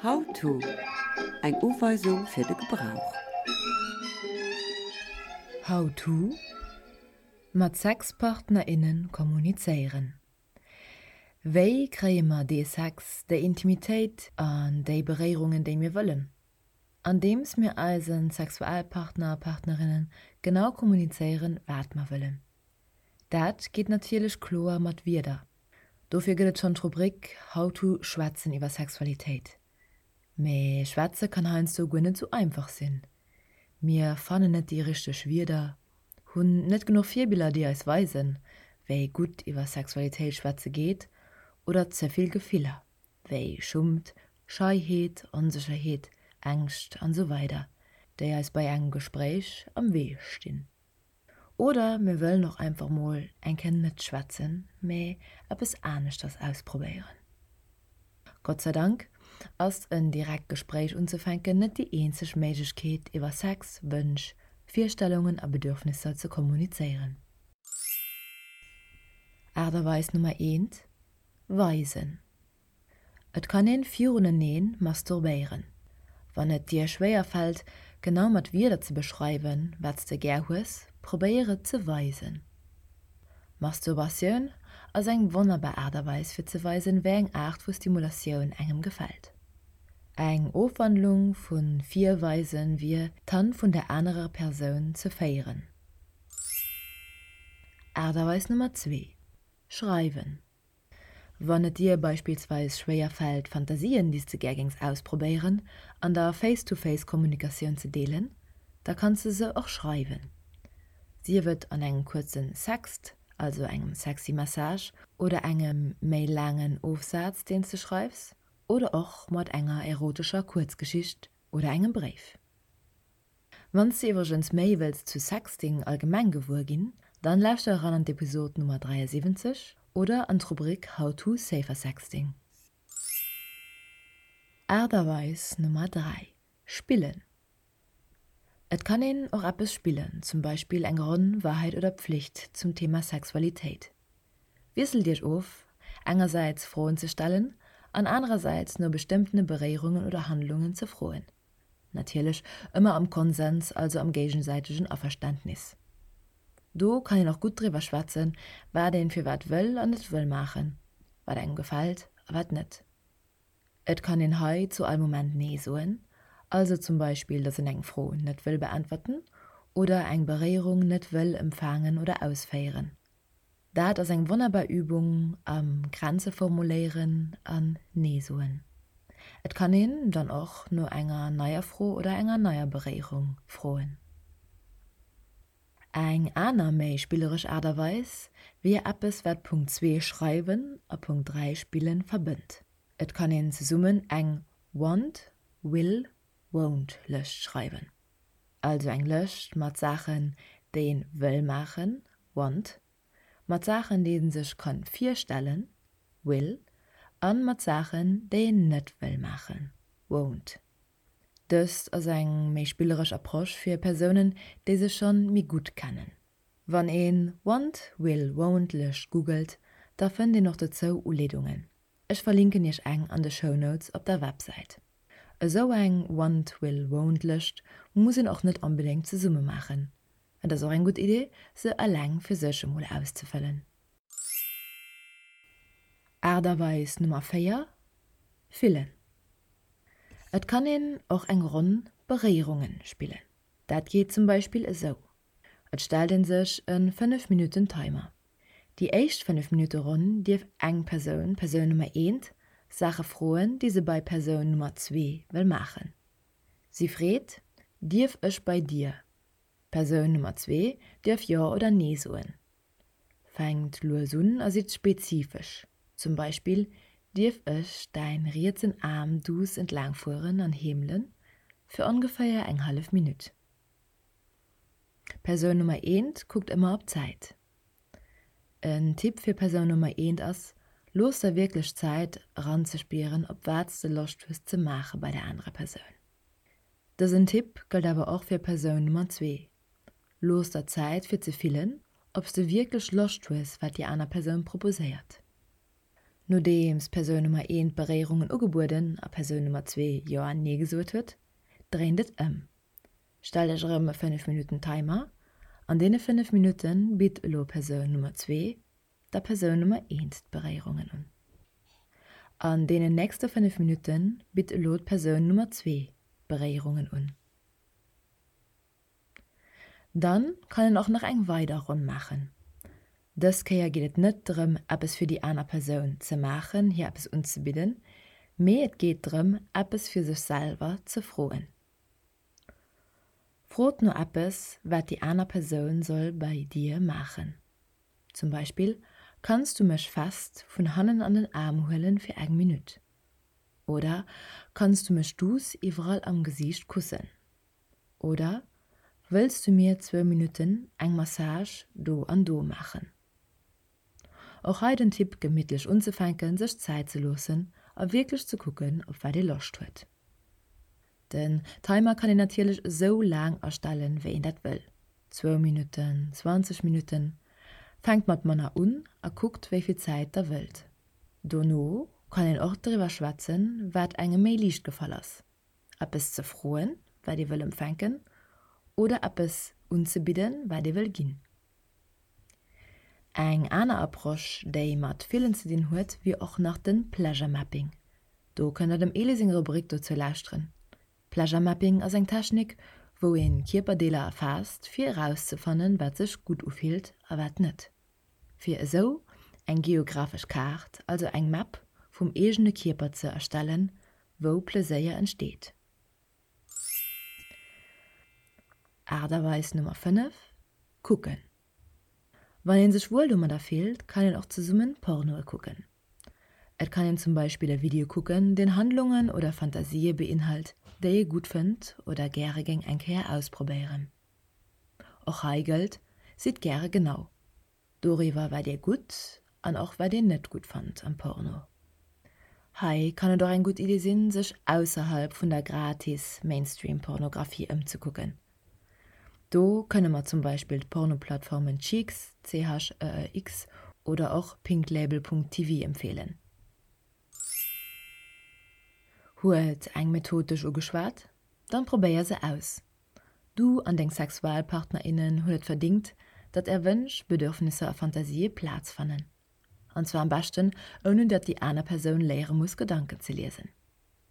How to, Eng Uweisung fir de Gebrauch. How to, Mat Sexpartner, innen kommunizéieren. Wéi kréie mer dee Sex, déi Intimitéit an déi Beréierungen, déi mir wëllen? Andeems mir eise Sexualpartner a Partnerinnen genau kommunizéieren, wat mer wëllen. Dat geet natierlech kloer mat Wierder. Dofir gëtt et schonn d'Rubrik How to Schwätzen iwwer Sexualitéit. Mee schwätze kann heiansdo guer net sou einfach sinn. Mir fannen net déi richteg Wierder, hunn net genuch Virbiller déi eis weisen, wéi gutt iwwer Sexualitéit schwätze geet oder ze vill Gefiller, wéi Schummt, Scheiheet, Onsécherheet, Ängscht an sou weider, déi eis bei engem Gespréich am Wee stinn. Oder mir wëllen och einfach mol eng Kéier net schwätzen, mee eppes aneschters ausprobéieren. Gott sei Dank ass en direkt Gespréich unzefänken net déi eenzeg Méiglechkeet iwwer Sex, Wënsch, Virstellungen a Bedürfnisser ze kommunizéieren. Aart a Weis Nummer eent, Weisen. Et kann een viruneneen masturbéieren. Wann et dir schwéier fällt, genau mat Wierder ze beschreiwen, wat s de gär hues, probéier et ze weisen. Masturbatioun ass eng wonnerbar Aart a Weis fir ze weisen, wéi eng Aart vu Stimulatioun engem gefält. Eng Ofwandlung vu virweisen wier, d'Hand vun der anerer Persoun ze féieren. Aart a Weis Nummer zwee, Schreiwen. Wann et dir beispillsweis schwéier fält, Fantasien, déi s de gär géings ausprobéieren, an der Face-to-Face-Kommunikatioun ze deelen, da kanns de se och schreiwen. Sief et an engem kuerzen Sext, also engem sexy Message, oder engem méi laangen Ofsaz, deen s de schreifs, oder och mat enger erotescher Kuerzgeschicht oder engem Bréif. Wann s de iwwregens méi wëlls zu Sexting allgemeng gewuer ginn, dann lauschter eran an d'Episod Nummer 73 oder an d'Rubrik How to Safer Sexting. Aart a Weis Nummer 3, Spillen. Et kann een och eppes spillen, zum Beispill eng Ronn Wahrheit oder Pflicht zum Thema Sexualitéit. Wiesselt iech of, engersäits Froen ze stellen an anerersäits no bestëmmtene Beréierungen oder Handlungen ze froen. Natierlech ëmmer am Konsens, also am géigesäitegen Averständnis. Do kann een och gutt driwwer schwätzen, wat een firwat wëll an net wëll maachen, wat engem gefält a wat net. Et kann een hei zu all Moment Nee soen, also zum Beispill, dass een eng Fro net wëll beäntwerten oder eng Beréierung net wëll empfaangen oder ausféieren. Dat ass eng wonnerbar Übung am Grenze formuléieren an Nee soen. Et kann een dann och no enger neier Fro oder enger neier Beréierung froen. Eng aner méi spilleresch Aart a Weis wier eppes wat Punkt zwee schreiwen a Punkt 3 spillen verbënnt. Et kann een zesummen eng Want, Will, Won't Lëscht schreiwen. Also eng Lëscht mat Saachen déi een wëll maachen, want, mat Saachen déi een sech kann virstellen, will, an mat Saachen déi een net wëll maachen, won't. Dëst ass eng méi spilleresch Approche fir Persounen déi sech schonn méi gutt kennen. Wann een Want, Will, Won't Lëscht googelt, da fënnt een och dozou Uleedungen. Ech verlinken iech eng an de Shownotes op der Websäit. Esou eng Want, Will, Won't Lëscht muss een och net onbedéngt zesumme maachen. Et ass och eng gutt Idee se eleng fir sech emol auszefëllen. Aart a Weis Nummer 4, Fillen. Et kann een och eng Ronn Beréierungen spillen. Dat geet zum Beispill esou, Et stellt een sech e 5 Minutten Timer. Déi éischt 5 Minutte Ronn dierf eng Persoun, Persoun Nummer eent, Saache froen, déi se bei Persoun Nummer zwee wëll maachen. Si freet, Dierf ech bei dir? Persoun Nummer zwee dierf Jo oder Nee soen. Fänkt lues un a sidd spezifesch, zum Beispill, Dierf ech däin rietsen Aarm duuss entlaang fueren an heemelen, fir ongeféier eng hallef Minutt? Persoun Nummer eent kuckt ëmmer op d'Zäit. En Tipp fir Persoun Nummer eent ass, Looss der wierklech Zäit eranzespieren op wat s de Loscht hues ze maache bei der anerer Persoun. Dësen Tipp gëllt awer och fir Persoun Nummer zwee, Looss der Zäit fir ze fillen, ob s de wierklech Loscht hues wat déi aner Persoun proposéiert. Nodeems Persoun Nummer eent Beréierungen ugebueden a Persoun Nummer zwee Jo an Nee gesot huet, dréint et ëm. Stellt Iech erëm e 5 Minutten Timer. An deene 5 Minutte bitt elo Persoun Nummer zwee der Persoun Nummer eent d'Beréierungen un. An deenen nächste 5 Minutte bitt elo d'Persoun Nummer zwee d'Beréierungen un. Dann kann een och nach eng weider Ronn maachen. Dës Kéier geet et net drëm eppes fir déi aner Persoun ze maachen, hir eppes unzebidden, mee et geet drëm eppes fir sech selwer ze froen. Frot no eppes wat déi aner Persoun soll bei dir maachen. Zum Beispill, Kanns du mech fest vun hannen an den Aarm huelen fir eng Minutt? Oder Kanns du mech duuss iwwerall am Gesiicht kussen? Oder Wëlls du mir zwou Minutten eng Massage do an do maachen? Och hei den Tipp gemittlech unzefänken, sech Zäit ze loossen a wierklech ze kucken op wat ee Loscht huet. Den Timer kann een natierlech esou laang astellen wéi een dat wëll, zwou Minutten, 20 Minutten. Fänkt mat manner un a kuckt wéi vill Zäit der wëllt. Dono kann een och driwwer schwätzen wat engem méi liicht gefall ass, eppes ze froen wat ee wëll empfänken oder eppes unzebidden wat ee wëll ginn. Eng aner Approche, déi mat Fillen ze dinn huet, wier och nach de Pleasure Mapping. Do kënnt der dem Elie seng Rubrik dozou lauschteren. Pleasure Mapping ass eng Technik, wou een Kierperdeeler erfaasst, fir erauszefannen, wat sech gutt ufillt a wat net. Fir esou eng geographesch Kaart, also eng Map vum eegene Kierper ze erstellen, wou Pleséier entsteet. Aart a Weis Nummer 5, Kucken. Wann een sech wuel domadder fillt, kann een och zesummen Pornoe kucken. Et kann een zum Beispill e Video kucken, deen Handlungen oder Fantasië beinhalt, déi ee gutt fënnt oder gäre géing eng Kéier ausprobéieren. Och hei gëllt, Sidd gäre genau doriwwer wat dir gutt an och wat dir net gutt fannt am Porno. Hei kann et och eng gutt Idee sinn, sech ausserhalb vun der gratis Mainstream-Pornografie ëmzekucken. Do kënne mer zum Beispill d'Pornoplattformen Cheex, CHEEX, oder och pinklabel.tv empfeelen. Huet eng Method dech ugeschwat? Dann probéier se aus! Du an deng Sexualpartnerinnen hunn et verdingt, datt är Wënsch, Bedürfnisser a Fantasië Plaz fannen. An zwar am beschten ouni datt déi aner Persoun léiere muss Gedanken ze liesen.